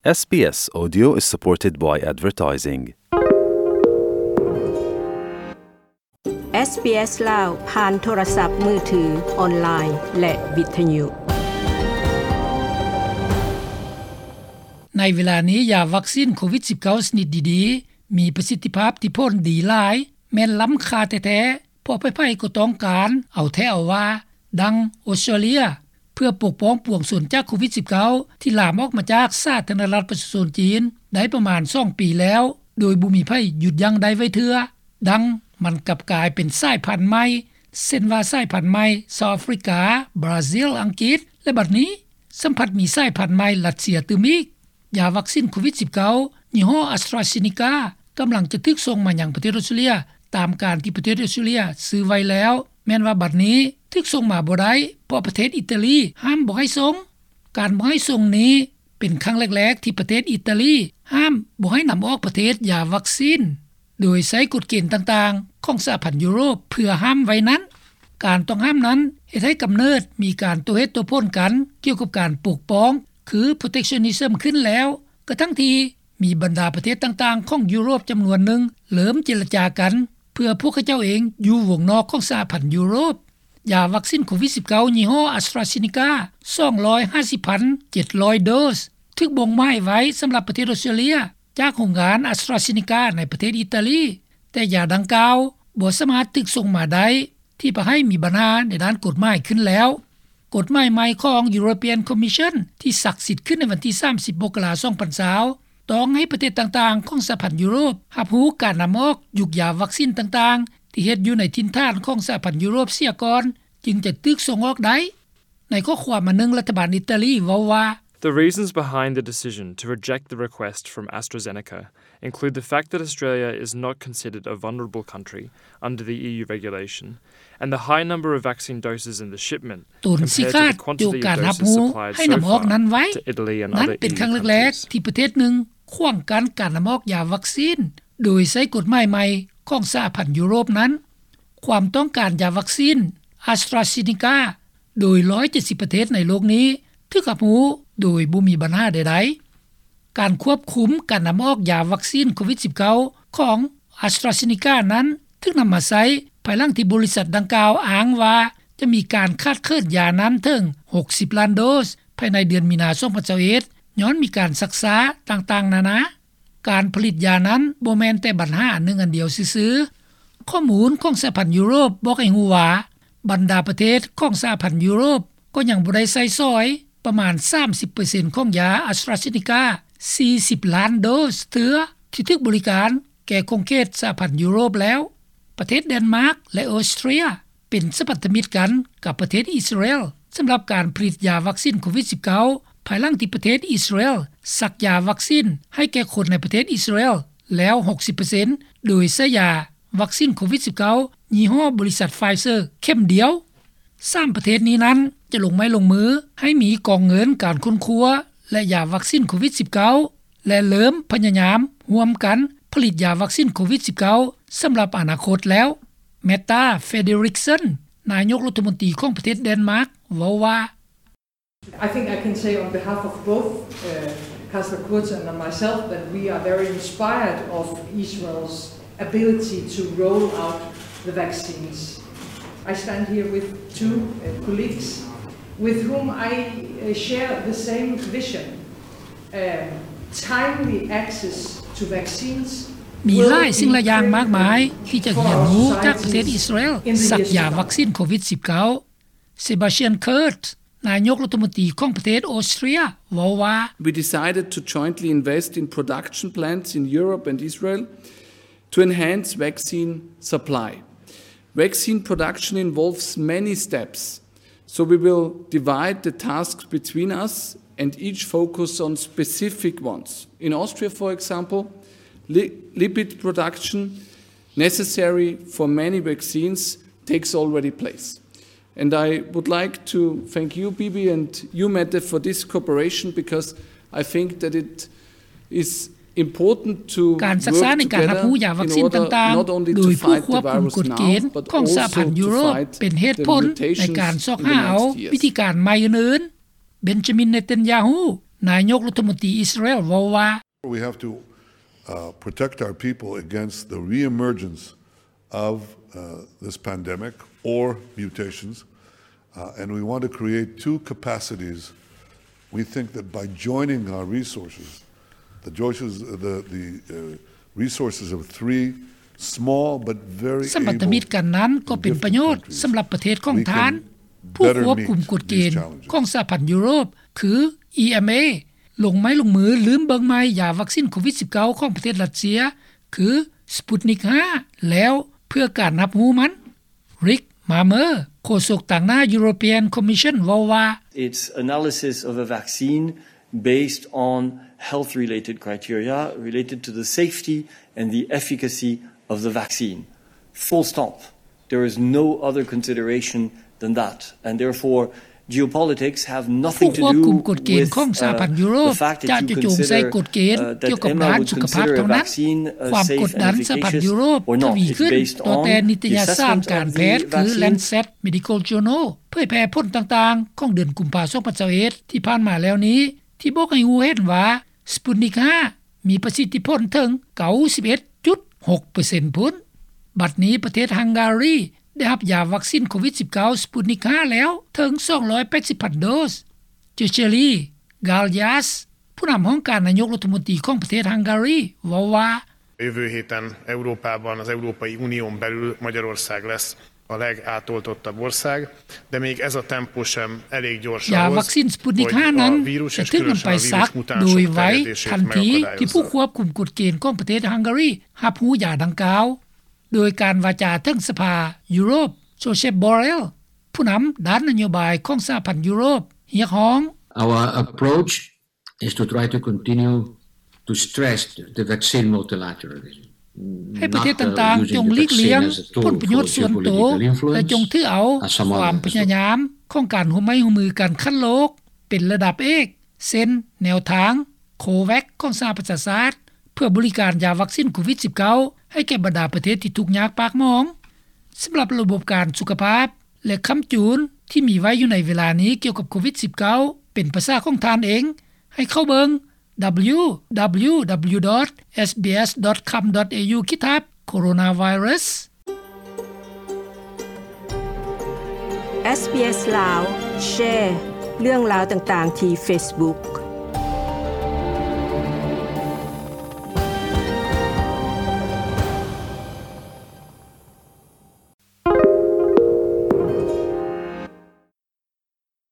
SBS Audio is supported by advertising. ເອສ ບີ ເອສ ລາວ ຜ່ານໂທລະສັບມືຖື, ອອນລາຍ ແລະ ວິທະຍຸ. ໃນເວລານີ້, ຢາວັກຊິນໂຄວິດສິບເກົ້າ ຊະນິດດີໆ ມີປະສິດທິພາບທີ່ຜົນດີຫຼາຍ, ແມ່ນລ້ຳຄ່າແທ້ໆ, ເພາະໃຜໆກໍຕ້ອງການເອົາແທ້ເອົາວ່າ, ດັ່ງອົດສະຕຣາເລຍ ເພື່ອປົກປ້ອງປວງຊົນຈາກໂຄວິດສິບເກົ້າ ທີ່ລາມອອກມາຈາກສາທາລະນະລັດປະຊາຊົນຈີນ ໄດ້ປະມານສອງປີແລ້ວ, ໂດຍບໍ່ມີໃຜຢຸດຢັ້ງໄດ້ໄວ້ເທື່ອ. ດັ່ງມັນກັບກາຍເປັນສາຍພັນໃໝ່, ເຊັ່ນວ່າສາຍພັນໃໝ່ຊາວອາຟຣິກາ, ບຣາຊິລ, ອັງກິດ ແລະ ບັດນີ້ ສ່ຳພັດມີສາຍພັນໃໝ່ຣັດເຊຍຕື່ມອີກ. ຢາວັກຊິນໂຄວິດສິບເກົ້າ ຍີ່ຫໍ້ AstraZeneca ກຳລັງຈະຖືກສົ່ງມາຍັງປະເທດອົດສະຕຣາເລຍ ຕາມການທີ່ປະເທດອົດສະຕຣາເລຍຊື້ໄວ້ແລ້ວ, ແມ່ນວ່າບັດນີ້ຖືກສົ່ງມາບໍ່ໄດ້ ເພາະປະເທດອິດຕາລີຫ້າມບໍ່ໃຫ້ສົ່ງ. ການບໍ່ໃຫ້ສົ່ງນີ້ເປັນຄັ້ງແລກໆ ທີ່ປະເທດອິດຕາລີຫ້າມບໍ່ໃຫ້ນຳອອກປະເທດຢາວັກຊິນ ໂດຍໃຊ້ກົດເກນຕ່າງໆຂອງສະຫະພັນຢູໂຣບເພື່ອຫ້າມໄວ້ນັ້ນ. ການຕ້ອງຫ້າມນັ້ນເຮັດໃຫ້ກຳເນີດມີການໂຕ້ເຫດໂຕ້ຜົນກັນກ່ຽວກັບການປົກປ້ອງ ຄື protectionism ຂຶ້ນແລ້ວ, ກະທັ່ງທີ່ມີບັນດາປະເທດຕ່າງໆຂອງຢູໂຣບຈຳນວນໜຶ່ງເລີ່ມເຈລະຈາກັນ ເພື່ອພວກເຂົາເຈົ້າເອງຢູ່ວົງນອກຂອງສະຫະພັນຢູໂຣບ. ຢາວັກຊິນໂຄວິດສິບເກົ້າ ຍີ່ຫໍ້ AstraZeneca ສອງຮ້ອຍຫ້າສິບພັນເຈັດຮ້ອຍໂດສ ຖືກບົ່ງໝາຍໄວ້ສຳລັບປະເທດອົດສະຕຣາເລຍ ຈາກໂຮງງານ AstraZeneca ໃນປະເທດອິດຕາລີ, ແຕ່ຢາດັ່ງກ່າວບໍ່ສາມາດຖືກສົ່ງມາໄດ້ ທີ່ປະໃຫ້ມີບັນຫາໃນດ້ານກົດໝາຍຂຶ້ນແລ້ວ. ກົດໝາຍໃໝ່ຂອງ European Commission ທີ່ສັກສິດຂຶ້ນໃນວັນທີສາມສິບ ມົກກະລາ ສອງພັນຊາວ ຕ້ອງໃຫ້ປະເທດຕ່າງໆຂອງສະຫະພັນຢູໂຣບຮັບຮູ້ການນຳອອກຍຸກຢາວັກຊິນຕ່າງໆ ທີ່ເຮັດຢູ່ໃນຖິ່ນຖານຂອງສະຫະພັນຢູໂຣບເສຍກ່ອນ ຈຶ່ງຈະຖືກສົ່ງອອກໄດ້. ໃນຂໍ້ຄວາມອັນໜຶ່ງ, ລັດຖະບານອິດຕາລີເວົ້າວ່າ, The reasons behind the decision to reject the request from AstraZeneca include the fact that Australia is not considered a vulnerable country under the E U regulation and the high number of vaccine doses in the shipment ຕົນຊິຂາດຢູ່ການຮັບຮູ້ໃຫ້ນຳອອກນັ້ນໄວ້. ນັ້ນເປັນຄັ້ງແລກໆທີ່ປະເທດໜຶ່ງຂວາງກັ້ນການນຳອອກຢາວັກຊິນ ໂດຍໃຊ້ກົດໝາຍໃໝ່ຂອງສະຫະພັນຢູໂຣບນັ້ນ. ຄວາມຕ້ອງການຢາວັກຊິນ AstraZeneca ໂດຍ ຮ້ອຍເຈັດສິບ ປະເທດໃນໂລກນີ້ຖືກຮັບຮູ້ໂດຍບໍ່ມີບັນຫາໃດໆ. ການຄວບຄຸມການນຳອອກຢາວັກຊິນໂຄວິດສິບເກົ້າ ຂອງ AstraZeneca ນັ້ນ ຖືກນຳມາໃຊ້ພາຍຫຼັງທີ່ບໍລິສັດດັ່ງກ່າວອ້າງວ່າ ຈະມີການຂາດເຂີນຢານັ້ນເຖິງ ຫົກສິບລ້ານໂດສ ພາຍໃນເດືອນມີນາ ສອງພັນຊາວເອັດ ຍ້ອນມີການຊັກຊ້າຕ່າງໆນານາ. ການຜະລິດຢານັ້ນບໍ່ແມ່ນແຕ່ບັນຫາອັນໜຶ່ງອັນດຽວຊື່ໆ. ຂໍ້ມູນຂອງສະຫະພັນຢູໂຣບບອກໃຫ້ຮູ້ວ່າ ບັນດາປະເທດຂອງສະຫະພັນຢູໂຣບກໍຍັງບໍ່ໄດ້ໃຊ້ສອຍປະມານສາມສິບເປີເຊັນຂອງຢາ AstraZeneca ສີ່ສິບລ້ານໂດສເທື່ອ ທີ່ຖືກບໍລິການແກ່ຂົງເຂດສະຫະພັນຢູໂຣບແລ້ວ. ປະເທດແດນມາກ ແລະ ອອສເຕຣເລຍ ເປັນສະພັນທະມິດກັນກັບປະເທດອິດສະຣາເອລ ສຳລັບການຜະລິດຢາວັກຊິນໂຄວິດສິບເກົ້າ ພາຍຫຼັງທີ່ປະເທດອິດສະຣາເອລສັກຢາວັກຊິນໃຫ້ແກ່ຄົນໃນປະເທດອິດສະຣາເອລແລ້ວ ຫົກສິບເປີເຊັນ ໂດຍໃຊ້ຢາວັກຊິນໂຄວິດສິບເກົ້າ ຍີ່ຫໍ້ບໍລິສັດ Pfizer ເຂັມດຽວ. ສາມປະເທດນີ້ນັ້ນຈະລົງໄມ້ລົງມືໃຫ້ມີກອງເງິນການຄົ້ນຄວ້າ ແລະ ຢາວັກຊິນໂຄວິດສິບເກົ້າ ແລະ ເລີ່ມພະຍາຍາມຮ່ວມກັນຜະລິດຢາວັກຊິນໂຄວິດສິບເກົ້າ ສຳລັບອະນາຄົດແລ້ວ. Mette Frederiksen ນາຍົກລັດຖະມົນຕີຂອງປະເທດແດນມາກ ເວົ້າວ່າ, I think I can say on behalf of both, uh, Kazuo Kurz and myself that we are very inspired of Israel's ability to roll out the vaccines. I stand here with two, uh, colleagues with whom I, uh, share the same vision, um, timely access to vaccines. ມີຫຼາຍສິ່ງຫຼາຍຢ່າງມາກມາຍທີ່ຈະຮຽນຮູ້ຈາກປະເທດອິດສະຣາເອລ ສັກຢາວັກຊິນໂຄວິດສິບເກົ້າ. Sebastian Kurz ນາຍົກລັດຖະມົນຕີຂອງປະເທດອອສເຕຣເລຍ ເວົ້າວ່າ, We decided to jointly invest in production plants in Europe and Israel to enhance vaccine supply. Vaccine production involves many steps, so we will divide the tasks between us and each focus on specific ones. In Austria, for example, li-, lipid production necessary for many vaccines takes already place. And I would like to thank you, Bibi, and you, Mette, for this cooperation, because I think that it is important to work together in order not only to fight the virus now, but also to fight the mutation. ການສຶກສາໃນການຮັບຮູ້ຢາວັກຊິນຕ່າງໆ ໂດຍຜູ້ຄວບຄຸມກົດເກນຂອງສະຫະພັນຢູໂຣບ ເປັນເຫດຜົນໃນການຊອກຫາເອົາວິທີການໃໝ່ອື່ນໆ. Benjamin Netanyahu ນາຍົກລັດຖະມົນຕີອິດສະຣາແອລເວົ້າວ່າ We have to, uh, protect our people against the re-emergence of, uh, this pandemic or mutations, uh, and we want to create two capacities. We think that by joining our resources, the resources, the, the, uh, resources of three small but very ສຳພັນທະມິດກັນນັ້ນກໍເປັນປະໂຫຍດສຳລັບປະເທດຂອງທ່ານ ຜູ້ຄວບຄຸມກົດເກນຂອງສະຫະພັນຢູໂຣບ ຄື EMA ລົງໄມ້ລົງມືລືມເບິ່ງໃໝ່ຢາວັກຊິນໂຄວິດສິບເກົ້າຂອງປະເທດຣັດເຊຍ ຄື Sputnik ຫ້າ ແລ້ວເພື່ອການຮັບຮູ້ມັນ. Rick Marmer ໂຄສົກຕາງໜ້າ European Commission ເວົ້າວ່າ Its analysis of a vaccine based on health-related criteria related to the safety and the efficacy of the vaccine. Full stop. There is no other consideration than that. And therefore, geopolitics have nothing to do with, uh, the fact that you consider, uh, that M A would consider a vaccine, uh, safe and efficacious or not. It's based on the science and the efficacy or not. It's based on the science and the efficacy of the vaccine. ຜູ້ຄວບຄຸມກົດເກນຂອງສະຫະພັນຢູໂຣບ ຈະຈຸຈົງໃສ່ກົດເກນກ່ຽວກັບດ້ານສຸຂະພາບເທົ່ານັ້ນ. ຄວາມກົດດັນສະຫະພັນຢູໂຣບທະວີຂຶ້ນຕໍ່ແຕ່ນິຕະຍະສານການແພດ ຄື Lancet Medical Journal ເຜີຍແຜ່ຜົນຕ່າງໆຂອງເດືອນກຸມພາ ສອງພັນຊາວເອັດ ທີ່ຜ່ານມາແລ້ວນີ້ ທີ່ບອກໃຫ້ຮູ້ເຫັນວ່າ Sputnik ຫ້າ ມີປະສິດທິຜົນເຖິງ ເກົ້າສິບເອັດຈຸດຫົກເປີເຊັນ ພຸ້ນ. ບັດນີ້ປະເທດຮັງກາຣີໄດ້ຮັບຢາວັກຊິນໂຄວິດສິບເກົ້າ Sputnik ຫ້າ ແລ້ວເຖິງ ສອງຮ້ອຍແປດສິບພັນໂດສ. György Galyas ຜູ້ນຳຫ້ອງການນາຍົກລັດຖະມົນຕີຂອງປະເທດຮັງກາຣີ ເວົ້າວ່າ Jövő héten Európában, az Európai Unión belül Magyarország lesz a legátoltottabb ország, de még ez a tempó sem elég gyors ahhoz, hogy a vírus, és különösen a vírus mutánsok terjedését megakadályozza. ຢາວັກຊິນ Sputnik ຫ້າ ນັ້ນຈະຖືກນຳໄປສັກໂດຍໄວທັນທີທີ່ຜູ້ຄວບຄຸມກົດເກນຂອງປະເທດຮັງກາຣີຮັບຮູ້ຢາດັ່ງກ່າວ. ໂດຍການວາຈາເຖິງສະພາຢູໂຣບ Josep Borrell ຜູ້ນຳດ້ານນະໂຍບາຍຂອງສະຫະພັນຢູໂຣບ ຮຽກຮ້ອງ Our approach is to try to continue to stress the vaccine multilateralism. ໃຫ້ປະເທດຕ່າງໆຈົ່ງຫຼີກລ່ຽງຜົນປະໂຫຍດສ່ວນໂຕ ແລະ ຈົ່ງຖືເອົາຄວາມພະຍາຍາມຂອງການຮ່ວມໄມ້ຮ່ວມມືກັນຂັ້ນໂລກເປັນລະດັບເອກ ເຊັ່ນ ແນວທາງ COVAX ຂອງສະຫະປະຊາຊາດ ເພື່ອບໍລິການຢາວັກຊິນໂຄວິດສິບເກົ້າ ໃຫ້ແກ່ບັນດາປະເທດທີ່ທຸກຍາກປາກໝອງ. ສຳລັບລະບົບການສຸຂະພາບ ແລະ ຄຳຈູນທີ່ມີໄວ້ຢູ່ໃນເວລານີ້ກ່ຽວກັບໂຄວິດສິບເກົ້າ ເປັນພາສາຂອງທ່ານເອງ ໃຫ້ເຂົ້າເບິ່ງ www.sbs.com.au ຂີດທັບ coronavirus. SBS ລາວ ແຊເລື່ອງລາວຕ່າງໆທີ່ Facebook.